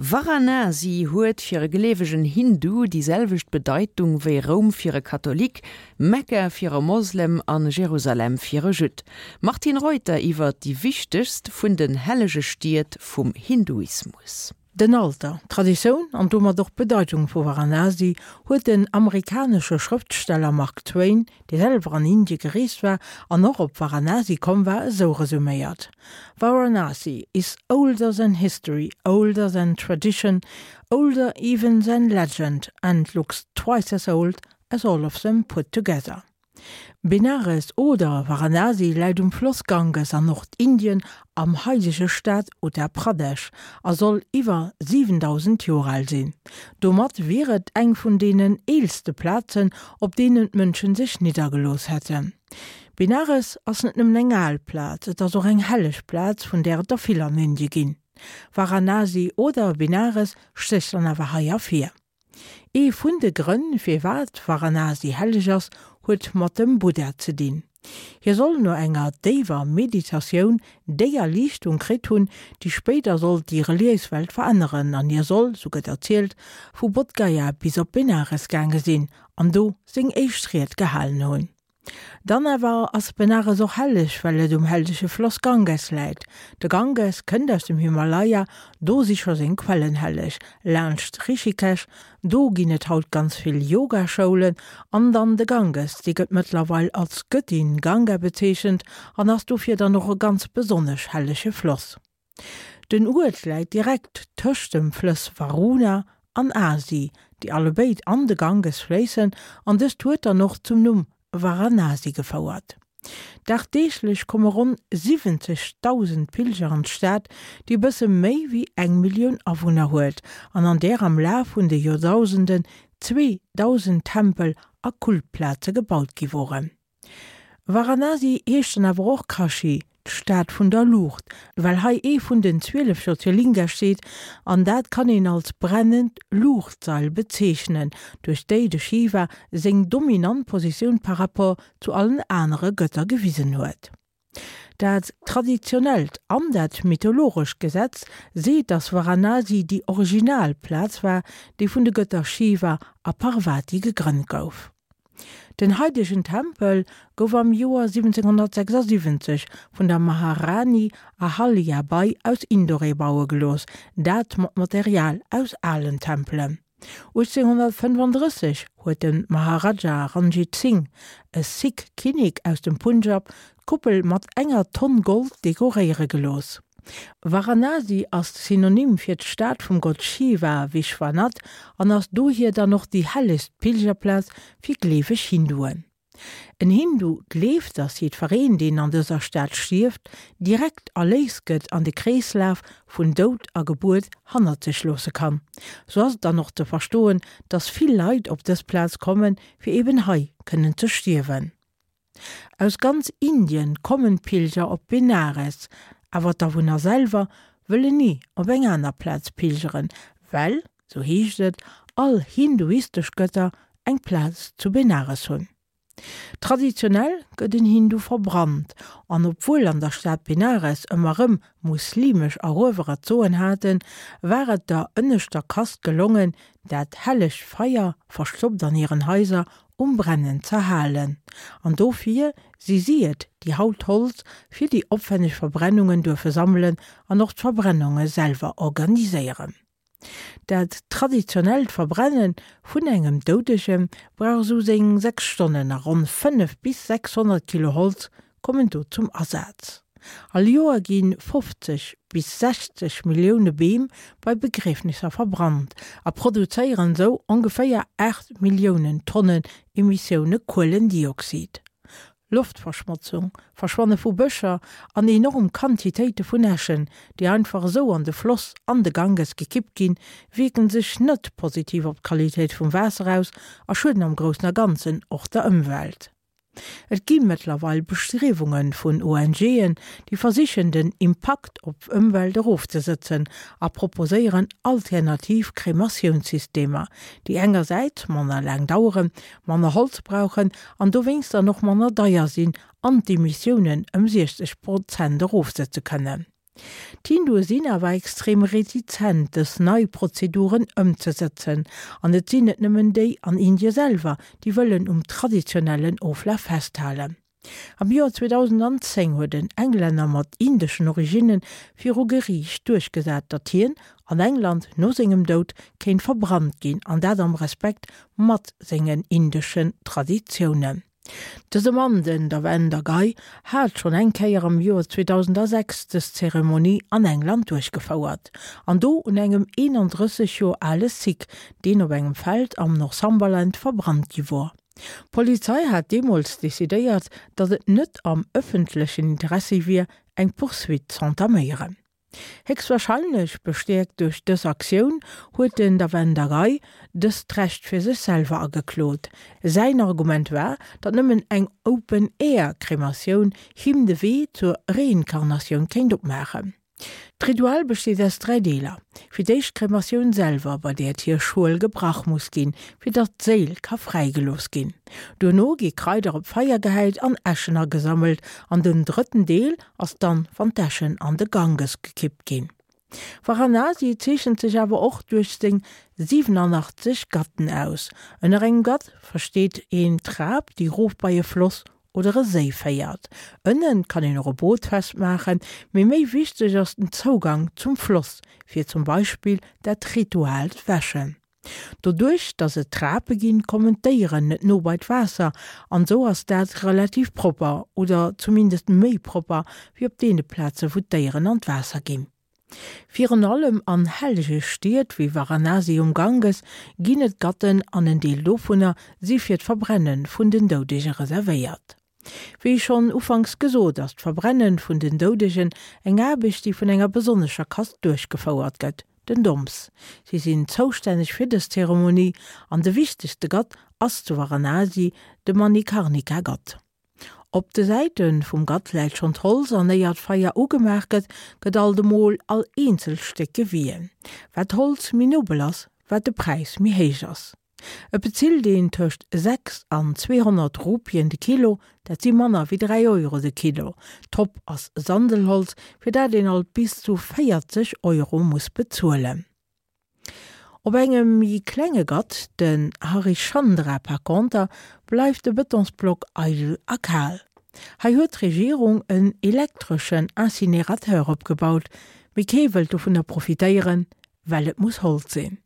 Varanasi huet fir e gleewegen Hindu déi selwecht Bedeitung wéi Roum fir e Katholik, Mekka fir e Moslem an Jerusalem fir e Judd. Martine Reuter iwwer déi wichtegst vun den hellege Stied vum Hinduismus. Den Alter, d'Traditioun an domat och d'Bedeitung vu Varanasi huet den amerikanesche Schrëftsteller Mark Twain, dee selwer an Indie gereest war an och op Varanasi komm war, esou resuméiert, Varanasi is older than history, older than tradition, older even than legend and looks twice as old as all of them put together. Benares oder Varanasi läit um Floss Ganges an Nordindien am haidege Staat Uttar Pradesh a soll iwwer 7.000 Joer al sinn. Domat wier et eng vun deenen eelste Plazen, op deenen d'Mënschen sech niddergelooss hätten. Benares ass net nëmmen eng al Plaz, et ass och eng helleg Plaz, vun där et der vill an Indie ginn. Varanasi oder Benares stécht dann awer hei ervir. Ee vun de Grënn, firwat Varanasi helleg ass, huet mat dem Buddha ze dinn. Hie soll no enger déiwer Meditatioun déi Erliichtung kritt hunn, déi spéider sollt déi reliéis Welt veränneren, an hie soll, sou gëtt erzielt, vu Bodhgaya bis op Benares gaange sinn an do seng éischt Ried gehalen hunn. Dann awer ass Benares och helleg, well et um hellege Floss Ganges läit. De Ganges kënnt aus dem Himalaya, do si scho seng Quellen helleg, laanscht Rishikesh, do ginn et haut ganz vill Yoga-Schoulen, an dann de Ganges, dee gëtt mëttlerweil als Gëttin Ganga bezeechent an ass dofir dann och e ganz besonnesch hellege Floss. Den Uert läit direkt tëscht dem Flëss Varuna an Asi, déi allebéid an de Ganges fléissen, an dëst huet dann och zum Numm Varanasi gefouert. Dagdeeglech komme ronn 70.000 Pilger an d'Stad, déi e bësse méi wéi eng Millioun Awunner huet an an där am Laf vun de Joerdausenden 2.000 Tempel a Kultplaze gebaut gi woren. Varanasi heescht dann awer och Kashi, d'Stad vun der Luucht, well hei ee vun den 12 Jyotirlinga steet an dat kann een als brennend Luuchtsail bezeechnen, duerch déi de Shiva seng dominant Positioun par rapport zu allen anere Gëtter gewisen huet. Dat traditionellt an dat mythologescht Gesetz seet, dass Varanasi déi original Plaz war, déi vun de Gëtter Shiva a Parvati gegrënnt gouf. Den haidegen Tempel gouf am Joer 1776 vun der Maharani Ahalya Bai aus Indore baue gelooss, dat mat Material aus alen Tempelen. 1835 huet de Maharaja Ranjit Singh, e Sikh Kinnek aus dem Punjab, d'Kuppel mat enger Tonn Gold dekoréiere gelooss. Varanasi ass Synonym fir d'Stad vum Gott Shiva, Vishwanath, an ass dohier dann och déi hellegst Pilgerplaz fir gleeweg Hinduen. En Hindu gleeft, dass jiddwereen, deen an dëser Stad stierft, direkt erléist gëtt an de Kreeslaf vun Doud a Gebuert hannert sech loosse kann. Sou ass et dann och ze verstoen, dass vill Leit op dës Plaz kommen, fir eben hei kënnen ze stierwen. Aus ganz Indien kommen d'Pilger op Benares, awer d'Awunner selwer wëllen ni op eng aner Plaz pilgeren, well, sou heescht et, all hinduistesch Gëtter eng Plaz zu Benares hunn. Traditionell gëtt en Hindu verbrannt, an obwuel an der Stad Benares ëmmer rëm muslimesch Eruewerer d'Soen haten, war et der ënneschter Kast gelongen, dat hellegt Feier, verstoppt an hiren Haiser, um Brennen z'erhalen. An dofir si si et, déi haut Holz fir déi opwenneg Verbrennungen duerfe sammelen an och d'Verbrennunge selwer organiséieren. Dat traditionellt Verbrenne vun engem Doudege brauch esou seng 6 Stonnen a ronn 5 bis 600 Kilo Holz kommen do zum Asaz. All Joer gi 50 bis 60 Millioune Beem bei Begriefnisser verbrannt a produzéieren esou ongeféier 8 Milliounen Tonnen Emissioune Kuelendioxid. Loftverschmotzung, Verschwanne vu Bëscher an enorm Quantitéite vun Äschen, déi einfach esou an de Floss an de Ganges gekippt ginn, wierken sech net positiv op d'Qualitéit vum Waasser aus a schueden am Groussen a Ganzen och der Ëmwelt. Et gi mëttlerweil Bestriewunge vun ONGen, déi versichen den Impakt op Ëmwelt erofzesëtzen a proposéieren alternativ Krematiounssystemer, déi engersäits manner laang daueren, manner Holz brauchen an dowéinst dann och manner deier sinn an d'Emissiounen ëm 60 Prozent erofsëtze kënnen. D'Hindue sinn awer extrem retizent, dës nei Prozeduren ëmzesëtzen. An et sinn net nëmmen déi an Indie selwer, déi wëllen um traditionellen Oflaf festhalen. Am Joer 2010 huet en Englänner mat indeschen Originne viru Geriicht duerchgesat, datt hien an England no sengem Doud kéint verbrannt ginn, an dat am Respekt mat sengen indeschen Traditiounen. Dëse Mann, den Davender Gai, hat schonn eng Kéier am Joer 2006 dës Zeremonie an England duerchgefouert, an do un engem 31 Joer ale Sikh, deen op engem Feld am Northumberland verbrannt gi wor. D'Polizei hat deemools decidéiert, datt et net am ëffentlechen Interessi wier, eng Poursuite z'entaméieren. Héchstwahrscheinlech bestäerkt duerch dës Aktioun huet den Davender Rai dëst Recht fir sech selwer ageklot. Säin Argument war, datt nëmmen eng Open-Air-Krematioun him de Wee zur Reinkarnatioun kéint opmaachen. D'Ritual besteet aus 3 Deeler, Fir d'éischt d'Krematioun selwer, bei där d'Hierschuel gebrach muss ginn, fir datt d'Séil ka fräigelooss ginn. Duerno gi Kraider op d'Feier gehäit an Äschen agesammelt an den drëtten Deel ass dann, wann d'Äschen an de Ganges gekippt ginn. Varanasi zeechent sech awer och duerch seng 87 Ghatten aus. Ënner engem Ghat versteet een d'Trap, déi rof bei e Floss oder e Séi féiert. Ënnen kann een och e Boot festmaachen, mee méi wichteg ass den Zougang zum Floss, fir zum Beispill dat rituaalt Wäschen. Doduerch dass et Trape ginn, kommen d'Déieren net no bei d'Waasser an esou ass dat relativ propper oder zumindest méi propper wéi op deene Plaze wou d'Déieren an d'Waasser ginn. Virun allem an hellege Stied wéi Varanasi um Ganges ginn et Gatten an en Deel dovunner si fir d'Verbrenne vun den Doudege reservéiert. Wéi schonn ufanks gesot, ass d'Verbrenne vun den Doudegen eng Aarbecht, déi vun enger besonnescher Kast duerchgefouert gëtt, den Doms. Si sinn zoustänneg fir dës Zeremonie an de wichtegste Gatt ass zu Varanasi de Manikarnika-Gatt. Op de Säite vum Gatt läit schonn d'Holz an éier d'Feier ugemaach gëtt, gëtt alt emol all eenzelt Stéck gewien. Wat d'Holz méi nobel ass, wat de Präis méi héich ass. Et bezilt een tëscht 6 an 200 Rupien de Kilo, dat si manner wéi 3 Euro de Kilo. Top ass Sandelholz, fir dat een alt bis zu 40 Euro muss bezuelen. Op engem méi klenge Gatt, den Harishchandra par conter, bleift de Betonsblock eidel a kal. Hei huet d'Regierung en elektreschen Incinerateur opgebaut, mee kee wëllt dovunner profitéieren, well et muss Holz sinn.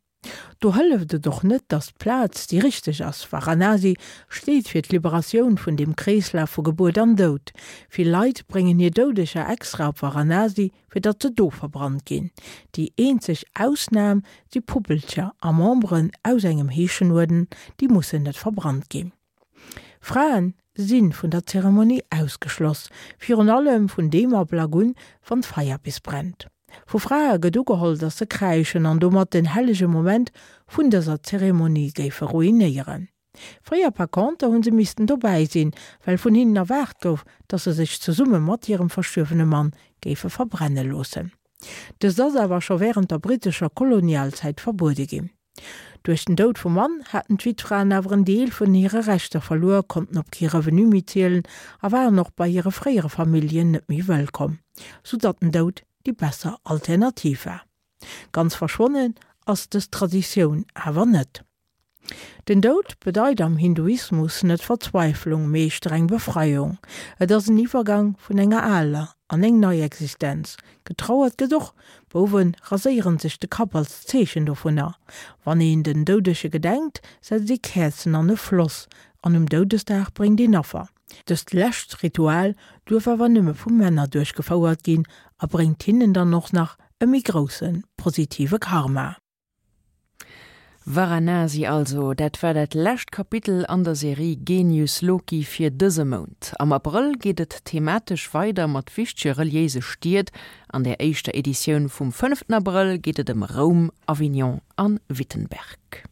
Do hëlleft et och net, datt d'Plaz déi richteg ass. Varanasi steet fir d'Liberatioun vun deem Kreeslaf vu Gebuert an Doud. Vill Leit bréngen hir Doudeger extra op Varanasi, fir datt se do verbrannt ginn. Déi eenzeg Ausnam si Puppelcher a Memberen aus engem Heeschenuerden, déi mussen net verbrannt ginn. Fraen si vun der Zeremonie ausgeschloss, virun allem vun deem Ablack un, wann d'Feier bis brennt. Vu Frae gëtt ugeholl, datt se kräischen an domat den hellege Moment vun dëser Zeremonie géife ruinéieren. Fréier par conter hu se missten dobäi sinn, well vun hinnen erwaart gouf, datt se sech zesumme mat hirem verstuerwene Mann géife verbrenne loossen. Dëst ass awer scho wärend der brittescher Kolonialzäit verbuede ginn. Duerch den Doud vum Mann haten d'Wittfraen awer en Deel vun hire Rechter verluer, konnten op kee Revenu méi zielen a waren och bei hire fréiere Familljen net méi wëllkomm, sou datt den Doud déi besser Alternativ war. Ganz verschwonnen ass dës Traditioun awer net. Den Doud bedeit am Hinduismus net Verzweiflung, mee streng Befreiung. Et ass en Iwwergang vun enger aler an eng nei Existenz. Getrauert gëtt och, Bouwe raséieren sech de Kapp als Zeechen dovunner. Wann een den Doudege gedenkt, setzt ee Käerzen an e Floss an um Doudesdag bréngt een Affer. Dëst lescht Ritual duerf awer nëmme vu Männer duerchgefouert ginn a bréngt hinnen dann och nach e méi grousse positive Karma. Varanasi also, dat war dat lescht Kapitel an der Serie Genius Loki fir dëse Mount. Am Abrëll geet et thematesch weider mat wichtege reliéise Stied. An der éischter Editioun vum fënneften Abrëll geet et ëm Roum, Avignon an Wittenberg.